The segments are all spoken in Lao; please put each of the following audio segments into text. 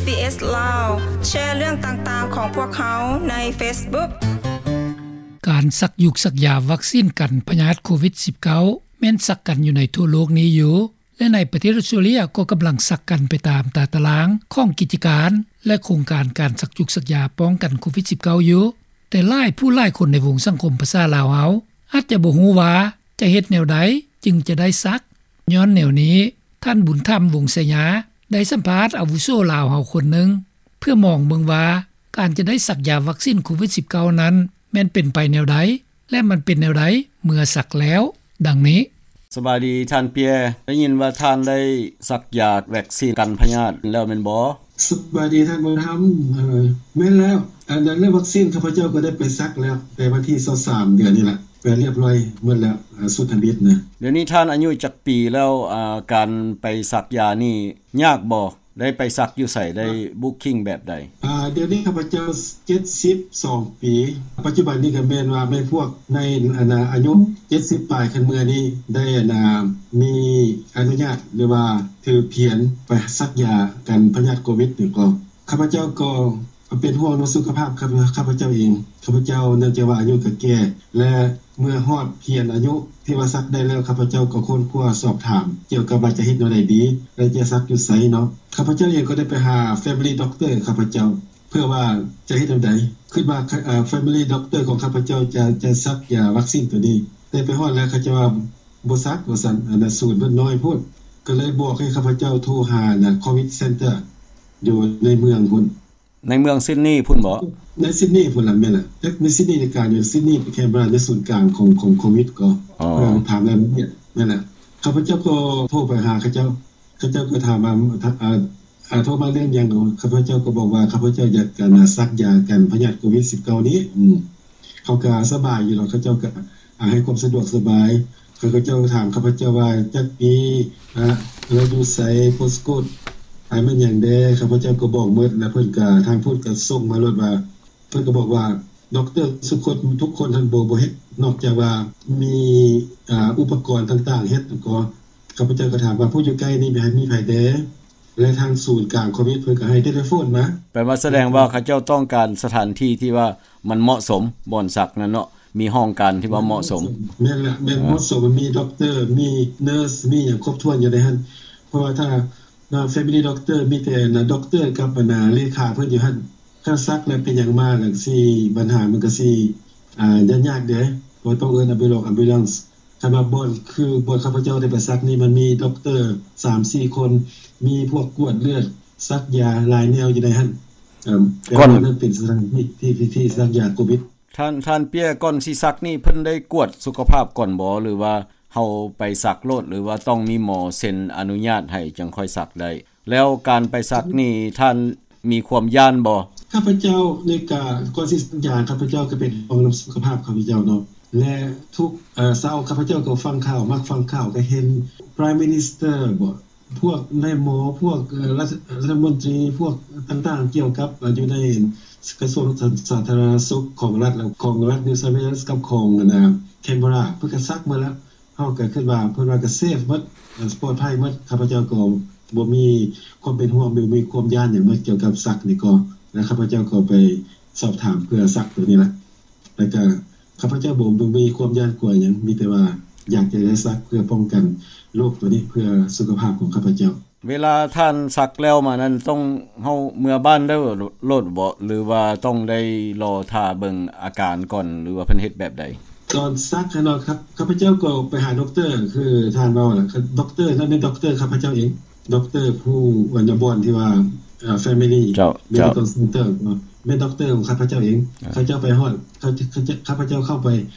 SBS ລາວ ແຊເລື່ອງຕ່າງໆຂອງພວກເຮົາໃນ Facebook. ການສັກຢູກສັກຢາວັກຊີນກັນພະຍາດໂຄວິດສິບເກົ້າ ແມ່ນສັກກັນຢູ່ໃນທົ່ວໂລກນີ້ຢູ່ ແລະ ໃນປະເທດອອສເຕຣເລັຍກໍກຳລັງສັກກັນໄປຕາມຕາຕະລາງຂອງກິດຈະການ ແລະ ໂຄງການການສັກຢູກສັກຢາປ້ອງກັນໂຄວິດສິບເກົ້າຢູ່. ແຕ່ຫຼາຍຜູ້ຫຼາຍຄົນໃນວົງສັງຄົມພາສາລາວເຮົາ ອາດຈະບໍ່ຮູ້ວ່າຈະເຮັດແນວໃດຈຶ່ງຈະໄດ້ສັກ. ຍ້ອນແນວນີ້, ທ່ານ ບຸນທຳ ວົງໄຊຍາ ໄດ້ສຳພາດອາວຸໂສລາວເຮົາຄົນໜຶ່ງ ເພື່ອມອງເບິ່ງວ່າ ການຈະໄດ້ສັກຢາວັກຊີນໂຄວິດສິບເກົ້ານັ້ນ ແມ່ນເປັນໄປແນວໃດ ແລະ ມັນເປັນແນວໃດເມື່ອສັກແລ້ວ. ດັ່ງນີ້. ສະບາຍດີທ່ານເປຍ, ໄດ້ຍິນວ່າທ່ານໄດ້ສັກຢາວັກຊີນກັນພະຍາດແລ້ວແມ່ນບໍ່? ສະບາຍດີທ່ານບຸນທຳ. ເອີ ແມ່ນແລ້ວ. ອັນນັ້ນເລື່ອງວັກຊີນ ຂ້າພະເຈົ້າກໍໄດ້ໄປສັກແລ້ວ ແຕ່ວັນທີຊາວສາມເດືອນນີ້ລະ ໄປລຽບລ້ອຍໝົດແລ້ວ ອາ ຊຸດທຳອິດນະ. ດຽວນີ້ທ່ານອາຍຸຈັກປີແລ້ວ? ອາ ການໄປສັກຢານີ້ຍາກບໍ່? ໄດ້ໄປສັກຢູ່ໃສ? ໄດ້ບຸກຄິງແບບໃດ? ອາ ດຽວນີ້ຂ້າພະເຈົ້າເຈັດສິບສອງປີ. ປັດຈຸບັນນີ້ກໍແມ່ນວ່າແມ່ນພວກໃນ ອັນນາ ອາຍຸເຈັດສິບປາຍຂຶ້ນເມືອນີ້ ໄດ້ ອັນນາ ມີອະນຸຍາດ ຫຼືວ່າຖືພຽນໄປສັກຢາກັນພະຍາດໂຄວິດນີ້ກໍ ຂ້າພະເຈົ້າກໍເປັນຫ່ວງເລື່ອງສຸຂະພາບຂ້າພະເຈົ້າເອງ. ຂ້າພະເຈົ້າ ເນື່ອງຈາກວ່າອາຍຸກໍແກ່ ແລະ ເມື່ອຮອດພຽນອາຍຸທີ່ວ່າສັກໄດ້ແລ້ວ ຂ້າພະເຈົ້າກໍຄົ້ນຄວ້າສອບຖາມກ່ຽວກັບວ່າຈະເຮັດແນວໃດດີ ແລະ ຈະສັກຢູ່ໃສເນາະ. ຂ້າພະເຈົ້າເອງກໍໄດ້ໄປຫາ Family Doctor ຂ້າພະເຈົ້າ ເພື່ອວ່າຈະເຮັດແນວໃດ ຄິດວ່າ ເອີ Family Doctor ຂອງຂ້າພະເຈົ້າຈະ ຈະສັກຢາວັກຊີນໂຕນີ້ ແຕ່ໄປຮອດແລ້ວເຂົາເຈົ້າວ່າບໍ່ສັກວ່າຊັ້ນ ອັນນາ ສູນເພິ່ນນ້ອຍໂພດ ກໍເລີຍບອກໃຫ້ຂ້າພະເຈົ້າໂທຫາ ອັນນາ Covid Center ຢູ່ໃນເມືອງພຸ້ນ. ໃນເມືອງຊິດນີພຸ້ນບໍ? ໃນຊິດນີພຸ້ນລະ ແມ່ນລະ. ຈັກໃນຊິດນີນີ້ກະຢູ່ຊິດນີ ແຄນເບີຣາ ໃນສູນກາງຂອງ ຂອງໂຄວິດກໍ ເອີ ຖາມລາຍລະອຽດ. ແມ່ນລະ. ຂ້າພະເຈົ້າກໍໂທໄປຫາເຂົາເຈົ້າ ເຂົາເຈົ້າກໍຖາມວ່າ ອາ ອາ ໂທມາເລື່ອງຫຍັງ? ຂ້າພະເຈົ້າກໍບອກວ່າ ຂ້າພະເຈົ້າຢາກ ອັນນາ ສັກຢາກັນພະຍາດໂຄວິດສິບເກົ້ານີ້. ອືມ ເຂົາກໍສະບາຍຢູ່ດອກ ເຂົາເຈົ້າກໍ ອາ ໃຫ້ຄວາມສະດວກສະບາຍ. ເຂົາເຈົ້າຖາມຂ້າພະເຈົ້າວ່າ ຈັກປີ ອາ ລາວຢູ່ໃສ ໂພສໂກດ ອາ ແມ່ນຫຍັງແດ່? ຂ້າພະເຈົ້າກໍບອກໝົດ ແລ້ວເພິ່ນກໍ ທາງພຸ້ນກໍສົ່ງມາໂລດວ່າ ເພິ່ນກໍບອກວ່າ ດັອກເຕີທຸກຄົນ ທຸກຄົນຫັ້ນບໍ່ ບໍ່ເຮັດ ນອກຈາກວ່າມີ ອາ ອຸປະກອນຕ່າງໆເຮັດ. ກໍ ຂ້າພະເຈົ້າກໍຖາມວ່າ ຜູ້ຢູ່ໃກ້ນີ້ມີໃຜແດ່? ແລະ ທາງສູນກາງໂຄວິດເພິ່ນກໍໃຫ້ເທເລໂຟນມາ. ແປວ່າສະແດງວ່າເຂົາເຈົ້າຕ້ອງການສະຖານທີ່ທີ່ວ່າມັນເໝາະສົມ ບ່ອນສັກນັ້ນເນາະ ມີຫ້ອງການທີ່ວ່າເໝາະສົມ. ແມ່ນລະ ແມ່ນເໝາະສົມ ມີດັອກເຕີ ມີເນີສ ມີຫຍັງຄົບຖ້ວນຢູ່ໃນຫັ້ນ. ເພາະວ່າຖ້າ Family Doctor ມີແຕ່ Doctor ກັບ ອັນນາ ເລຂາເພິ່ນຢູ່ຫັ້ນ. ຄັນສັກແລ້ວເປັນຫຍັງມາ ແລ້ວຊິ ບັນຫາມັນກໍຊິ ອາ ຍາກໆເດ້ ເພາະຕ້ອງເອີ້ນ Ambulance Ambulance. ຄັນວ່າບ່ອນ ຄືບ່ອນຂ້າພະເຈົ້າໄດ້ໄປສັກນີ້ ມັນມີດັອກເຕີສາມສີ່ຄົນ ມີພວກກວດເລືອດ ສັກຢາຫຼາຍແນວຢູ່ໃນຫັ້ນ. ເອີ ແຕ່ວ່ານັ້ນເປັນສະຖານທີ່ທີ່ ທີ່ສັກຢາໂຄວິດ. ທ່ານ ທ່ານເປຍ ກ່ອນຊິສັກນີ້ ເພິ່ນໄດ້ກວດສຸຂະພາບກ່ອນບໍ່ ຫຼືວ່າເຮົາໄປສັກໂລດ ຫຼືວ່າຕ້ອງມີໝໍເຊັນອະນຸຍາດໃຫ້ຈຶ່ງຄ່ອຍສັກໄດ້? ແລ້ວການໄປສັກນີ້ ທ່ານມີຄວາມຢ້ານບໍ່? ຂ້າພະເຈົ້ານີ້ກະ ກ່ອນຊິສັກຢາ ຂ້າພະເຈົ້າກະເປັນຫ່ວງນຳສຸຂະພາບຂ້າພະເຈົ້າເນາະ ແລະ ທຸກ ເອີ ເຊົ້າຂ້າພະເຈົ້າກໍຟັງຂ່າວ ມັກຟັງຂ່າວ ກະເຫັນ Prime Minister ບໍ ພວກນາຍໝໍ ພວກ ເອີ ລັດ ລັດຖະມົນຕີ ພວກຕ່າງໆ ກ່ຽວກັບ ເອີ ຢູ່ໃນກະຊວງສາ ສາທາລະນະສຸກຂອງລັດ ຂອງລັດ New South Wales ກັບຂອງ ອັນນາ Canberra ເພິ່ນກະສັກໝົດລະ. ເຮົາກໍຄິດວ່າ ເພິ່ນວ່າກໍເຊຟໝົດ ເອີ ປອດໄພໝົດ. ຂ້າພະເຈົ້າກໍບໍ່ມີຄວາມເປັນຫ່ວງ ບໍ່ມີຄວາມຢ້ານຫຍັງໝົດກ່ຽວກັບສັກນີ້ກໍ ແລະ ຂ້າພະເຈົ້າກໍໄປສອບຖາມເພື່ອສັກໂຕນີ້ລະ ແລະ ກໍຂ້າພະເຈົ້າບໍ່ ບໍ່ມີຄວາມຢ້ານກົວຫຍັງ ມີແຕ່ວ່າຢາກຈະໄດ້ສັກເພື່ອປ້ອງກັນໂລກໂຕນີ້ ເພື່ອສຸຂະພາບຂອງຂ້າພະເຈົ້າ. ເວລາທ່ານສັກແລ້ວມານັ້ນ ຕ້ອງ ເຮົາເມືອບ້ານໄດ້ໂລດບໍ ຫຼືວ່າຕ້ອງໄດ້ລໍຖ້າເບິ່ງອາການກ່ອນ ຫຼືວ່າເພິ່ນເຮັດແບບໃດ? ຕອນສັກຫັ້ນເນາະ ຂ້າພະເຈົ້າກໍໄປຫາດັອກເຕີ ຄືທ່ານເວົ້ານະ ດັອກເຕີນັ້ນແມ່ນດັອກເຕີຂ້າພະເຈົ້າເອງ ດັອກເຕີຜູ້ ອັນນາ ບ່ອນທີ່ວ່າ Family Medical Center ແມ່ນດັອກເຕີຂອງຂ້າພະເຈົ້າເອງ. ເຂົາເຈົ້າໄປຮອດ ຂ້າພະເຈົ້າເຂົ້າໄປ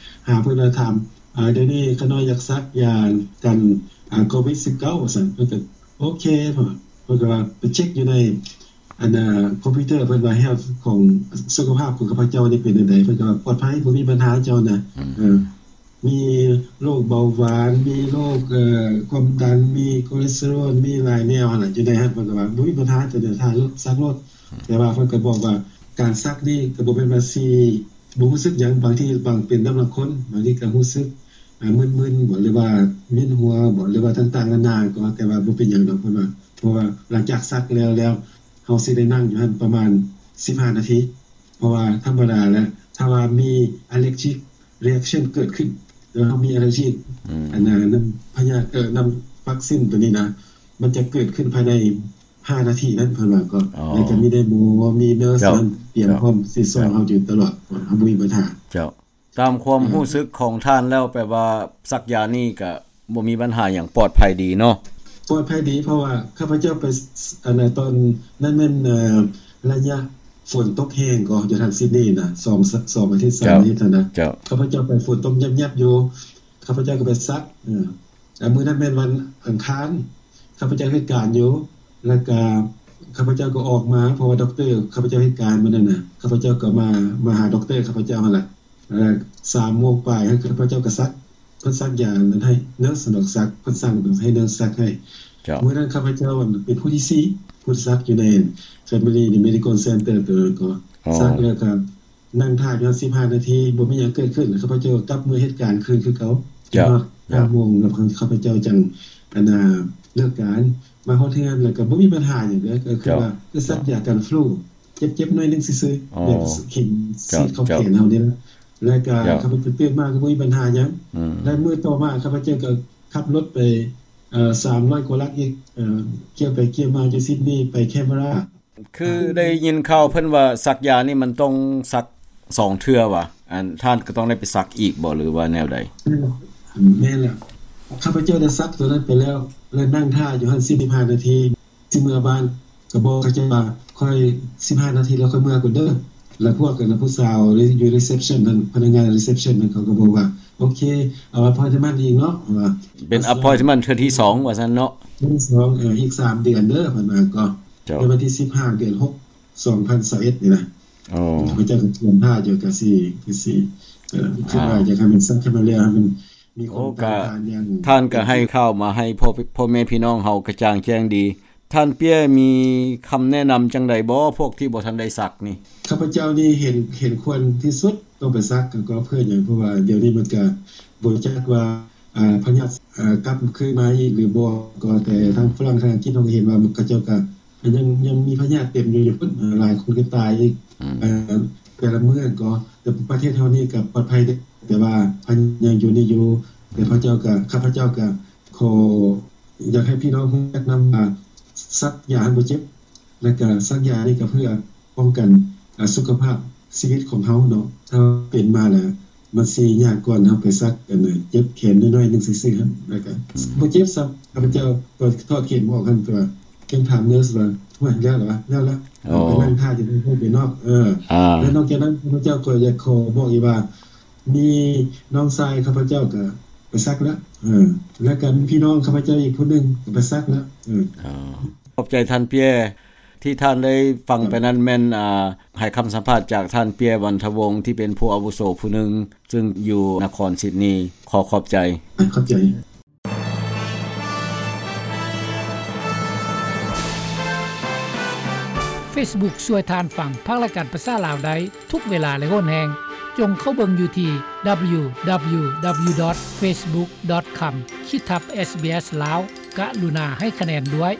ຫາເພິ່ນ ແລ້ວຖາມ ດຽວນີ້ຂ້ານ້ອຍຢາກສັກຢາກັນໂຄວິດສິບເກົ້າ ວ່າຊັ້ນ. ເພິ່ນກໍ ໂອເຄ ເພິ່ນ ເພິ່ນກໍວ່າໄປເຊັກຢູ່ໃນ ອັນນາ ຄອມພິວເຕີ ເພິ່ນວ່າ health ຂອງ ສຸຂະພາບຂອງຂ້າພະເຈົ້ານີ້ເປັນແນວໃດ? ເພິ່ນກໍວ່າປອດໄພ ບໍ່ມີບັນຫາເຈົ້ານະ ເອີ ມີໂລກເບົາຫວານ ມີໂລກ ເອີ ຄວາມດັນ ມີໂຄເລສເຕີຣອນ ມີຫຼາຍແນວຫັ້ນລະ ຢູ່ໃນຫັ້ນ. ເພິ່ນກໍວ່າບໍ່ມີບັນຫາ ເຈົ້ານະ ຖ້າສັກໂລດ. ແຕ່ວ່າເພິ່ນກໍບອກວ່າ ການສັກນີ້ກໍບໍ່ແມ່ນວ່າຊິ ບໍ່ຮູ້ສຶກຫຍັງ ບາງທີບາງ ເປັນນຳລາງຄົນ ບາງທີກໍຮູ້ສຶກ ອາ ມຶນໆບໍ ຫຼືວ່າ ເວີຍນຫົວບໍ ຫຼືວ່າຕ່າງໆນານາ ກໍ ແຕ່ວ່າບໍ່ເປັນຫຍັງດອກ ເພິ່ນວ່າ. ເພາະວ່າຫຼັງຈາກສັກແລ້ວ ແລ້ວ ເຮົາຊິໄດ້ນັ່ງຢູ່ຫັ້ນປະມານສິບຫ້ານາທີ ເພາະວ່າທຳມະດາແລ້ວ ຖ້າວ່າມີ allergic reaction ເກີດຂຶ້ນ ຫຼືເຮົາມີ allergic ອືມ ອັນນັ້ນ ນຳພະຍາດ ເອີ ນຳວັກຊິນໂຕນີ້ນະ ມັນຈະເກີດຂຶ້ນພາຍໃນຫ້ານາທີນັ້ນ ເພິ່ນວ່າກໍ ອໍ ແລ້ວກໍມີໄດ້ໝໍ ມີເນີສ ເຈົ້າ ນັ້ນຕຽມ ເຈົ້າ ພ້ອມຊິຊ່ອຍ ເຈົ້າ ເຮົາຢູ່ຕະຫຼອດ ເຮົາບໍ່ມີບັນຫາ. ເຈົ້າ ຕາມຄວາມ ອືມ ຮູ້ສຶກຂອງທ່ານແລ້ວ ແປວ່າສັກຢານີ້ກະບໍ່ມີບັນຫາຫຍັງ ປອດໄພດີເນາະ? ປອດໄພດີ ເພາະວ່າຂ້າພະເຈົ້າໄປ ອັນນັ້ນ ຕອນນັ້ນແມ່ນ ເອີ ໄລຍະຝົນຕົກແຮງກໍຢູ່ທາງຊິດນີນະ ສອງ ສອງອາທິດ ສາມອາທິດຫັ້ນນະ ເຈົ້າ ຂ້າພະເຈົ້າໄປຝົນຕົກຍັບໆຢູ່ ຂ້າພະເຈົ້າກໍໄປສັກ ເອີ ແຕ່ມື້ນັ້ນແມ່ນວັນອັງຄານ ຂ້າພະເຈົ້າເຮັດການຢູ່ ແລ້ວກະຂ້າພະເຈົ້າກໍອອກມາ ເພາະວ່າດັອກເຕີ ຂ້າພະເຈົ້າເຮັດການມື້ນັ້ນນະ ຂ້າພະເຈົ້າກໍມາ ມາຫາດັອກເຕີຂ້າພະເຈົ້າຫັ້ນລະ ເອີ ສາມໂມງປາຍ ຂ້າພະເຈົ້າກໍສັກ ເພິ່ນສັກຢານັ້ນໃຫ້ເນີສ ສັກ ເພິ່ນສັ່ງໃຫ້ເນີສສັກໃຫ້ ເຈົ້າ ມື້ນັ້ນຂ້າພະເຈົ້າເປັນຜູ້ທີສີ່ ຜູ້ສັກຢູ່ໃນ Family Medical Center ໂຕນັ້ນກໍ ອໍ ສັກແລ້ວກໍນັ່ງຖ້າຢູ່ຫັ້ນສິບຫ້ານາທີ ບໍ່ມີຫຍັງເກີດຂຶ້ນ ຂ້າພະເຈົ້າກັບເມືອເຮັດການຄືນຄືເກົ່າ ເຈົ້າ ຮອດຫ້າໂມງ ແລ້ວຂ້າພະເຈົ້າຈັ່ງ ອັນນ່າ ເລີກການ ມາຮອດເຮືອນ ແລ້ວກໍບໍ່ມີບັນຫາຫຍັງເດີ ກໍຄືວ່າ ເຈົ້າ ຄືສັກຢາກັນຟລູ ເຈັບໆໜ້ອຍໜຶ່ງຊື່ໆ ອໍ ແບບເຂັມ ເຈົ້າ ສີດເຂົ້າແຂນເຮົານີ້ລະ ແລ້ວກໍ ເຈົ້າ ຂ້າພະເຈົ້າຕື່ນມາກໍບໍ່ມີບັນຫາຫຍັງ ອືມ ແລະມື້ຕໍ່ມາຂ້າພະເຈົ້າກໍຂັບລົດໄປ ເອີ ສາມຮ້ອຍກວ່າຫຼັກອີກ ເອີ ກ່ຽວໄປກ່ຽວມາຈາກຊິດນີໄປແຄນເບຣາ ຄືໄດ້ຍິນຂ່າວເພິ່ນວ່າສັກຢານີ້ມັນຕ້ອງສັກສອງເທື່ອຫວາ? ອັນ ທ່ານກໍຕ້ອງໄດ້ໄປສັກອີກບໍ່ ຫຼືວ່າແນວໃດ? ແມ່ນແລ້ວ ຂ້າພະເຈົ້າໄດ້ສັກໂຕນັ້ນໄປແລ້ວ ແລະນັ່ງຖ້າຢູ່ຫັ້ນສິບຫ້ານາທີ ຊິເມືອບ້ານ ກໍບອກເຂົາເຈົ້າວ່າ ຂ້ອຍສິບຫ້ານາທີແລ້ວ ຂ້ອຍເມືອກ່ອນເດີ ແລ້ວພວກ ອັນ ຜູ້ສາວຢູ່ reception ນັ້ນ ພະນັກງານ reception ນັ້ນ ເຂົາກໍບອກວ່າ ໂອເຄ ເອົາ appointment ອີກເນາະ ວ່າ ເປັນ appointment ເທື່ອທີສອງວ່າຊັ້ນເນາະ ເທື່ອທີສອງ ເອີ ອີກສາມເດືອນເດີ ເພິ່ນວ່າກໍ ເຈົ້າ ໃນວັນທີສິບຫ້າ ເດືອນຫົກ ສອງພັນຊາວເອັດນີ້ນະ ໂອ້ ຂ້າພະເຈົ້າກໍຕຽມຖ້າຢູ່ ກໍຊິ ກໍຊິ ເອີ ຄິດວ່າ ອ່າ ຢາກໃຫ້ມັນສັກໃຫ້ມັນແລ້ວ ໃຫ້ມັນມີຄວາມ ໂອ້ ກໍຕ້ານທານຢ່າງ ທ່ານກໍໃຫ້ຂ່າວມາໃຫ້ພໍ່ ພໍ່ແມ່ພີ່ນ້ອງເຮົາກະຈ່າງແຈ້ງດີ. ທ່ານເປຍມີຄຳແນະນຳຈັ່ງໃດບໍ່ ພວກທີ່ບໍ່ທັນໄດ້ສັກນີ້? ຂ້າພະເຈົ້ານີ້ເຫັນ ເຫັນຄວນທີ່ສຸດຕ້ອງໄປສັກ ກໍເພື່ອຫຍັງ ເພາະວ່າດຽວນີ້ມັນກະບໍ່ຈັກວ່າ ອ່າ ພະຍາດ ເອີ ກັບຄືນມາອີກຫຼືບໍ່ ກໍແຕ່ທາງຝຣັ່ງ ທາງອັງກິດ ເຮົາກໍເຫັນວ່າເຂົາເຈົ້າກໍຍັງ ຍັງມີພະຍາດເຕັມຢູ່ ຢູ່ພຸ້ນ ເອີ ຫຼາຍຄົນກໍຕາຍອີກ ອືມ ເອີ ແຕ່ລະມື້ກໍ ແຕ່ປະເທດເຮົານີ້ກໍປອດໄພເດ້ ແຕ່ວ່າພະຍາດຍັງຢູ່ນີ້ຢູ່ ແຕ່ພະເຈົ້າກໍ ຂ້າພະເຈົ້າກໍຂໍ ຢາກໃຫ້ພີ່ນ້ອງຮູ້ຈັກນຳວ່າ ສັກຢາບໍ່ເຈັບ ແລ້ວກະສັກຢານີ້ກະເພື່ອປ້ອງກັນ ອາ ສຸຂະພາບຊີວິດຂອງເຮົາເນາະ ຖ້າເປັນມາແລ້ວ ມັນຊິຍາກກ່ອນເຮົາໄປສັກ ອັນ ເຈັບແຂນນ້ອຍໆໜຶ່ງຊື່ໆຫັ້ນ ແລ້ວກະ ອືມ ບໍ່ເຈັບຊ້ຳ ຂ້າພະເຈົ້າກໍຖອດເຂັມອອກຫັ້ນ ແຕ່ວ່າຍັງຖາມເນີສວ່າ ໂອ້ຍ ແລ້ວລະວະ ແລ້ວລະ ໂອ້ ໄປນັ່ງຖ້າຢູ່ເທິງເນາະ ເອີ ອ່າ ແລ້ວນອກຈາກນັ້ນ ຂ້າພະເຈົ້າກໍຢາກຂໍບອກອີກວ່າ ມີນ້ອງຊາຍຂ້າພະເຈົ້າກໍໄປສັກແລ້ວ ເອີ ແລ້ວກໍມີພີ່ນ້ອງຂ້າພະເຈົ້າອີກຜູ້ໜຶ່ງກໍໄປສັກແລ້ວ ເອີ ຂອບໃຈທ່ານເປຍ ທີ່ທ່ານໄດ້ຟັງໄປນັ້ນແມ່ນ ອ່າ ໃຫ້ຄຳສຳພາດຈາກທ່ານເປຍ ວັນທະວົງ ທີ່ເປັນຜູ້ອາວຸໂສຜູ້ໜຶ່ງ ຊຶ່ງຢູ່ນະຄອນຊິດນີ ຂໍຂອບໃຈ ຂອບໃຈ. Facebook ຊ່ວຍທ່ານຟັງພັກລາຍການພາສາລາວໄດ້ທຸກເວລາ ແລະ ໂຫນແຮງ. ຈົ່ງເຂົ້າເບິ່ງຢູ່ທີ່ www.facebook.com ຂີດທັບ SBS ລາວ. ກະລຸນາໃຫ້ຄະແນນດ້ວຍ.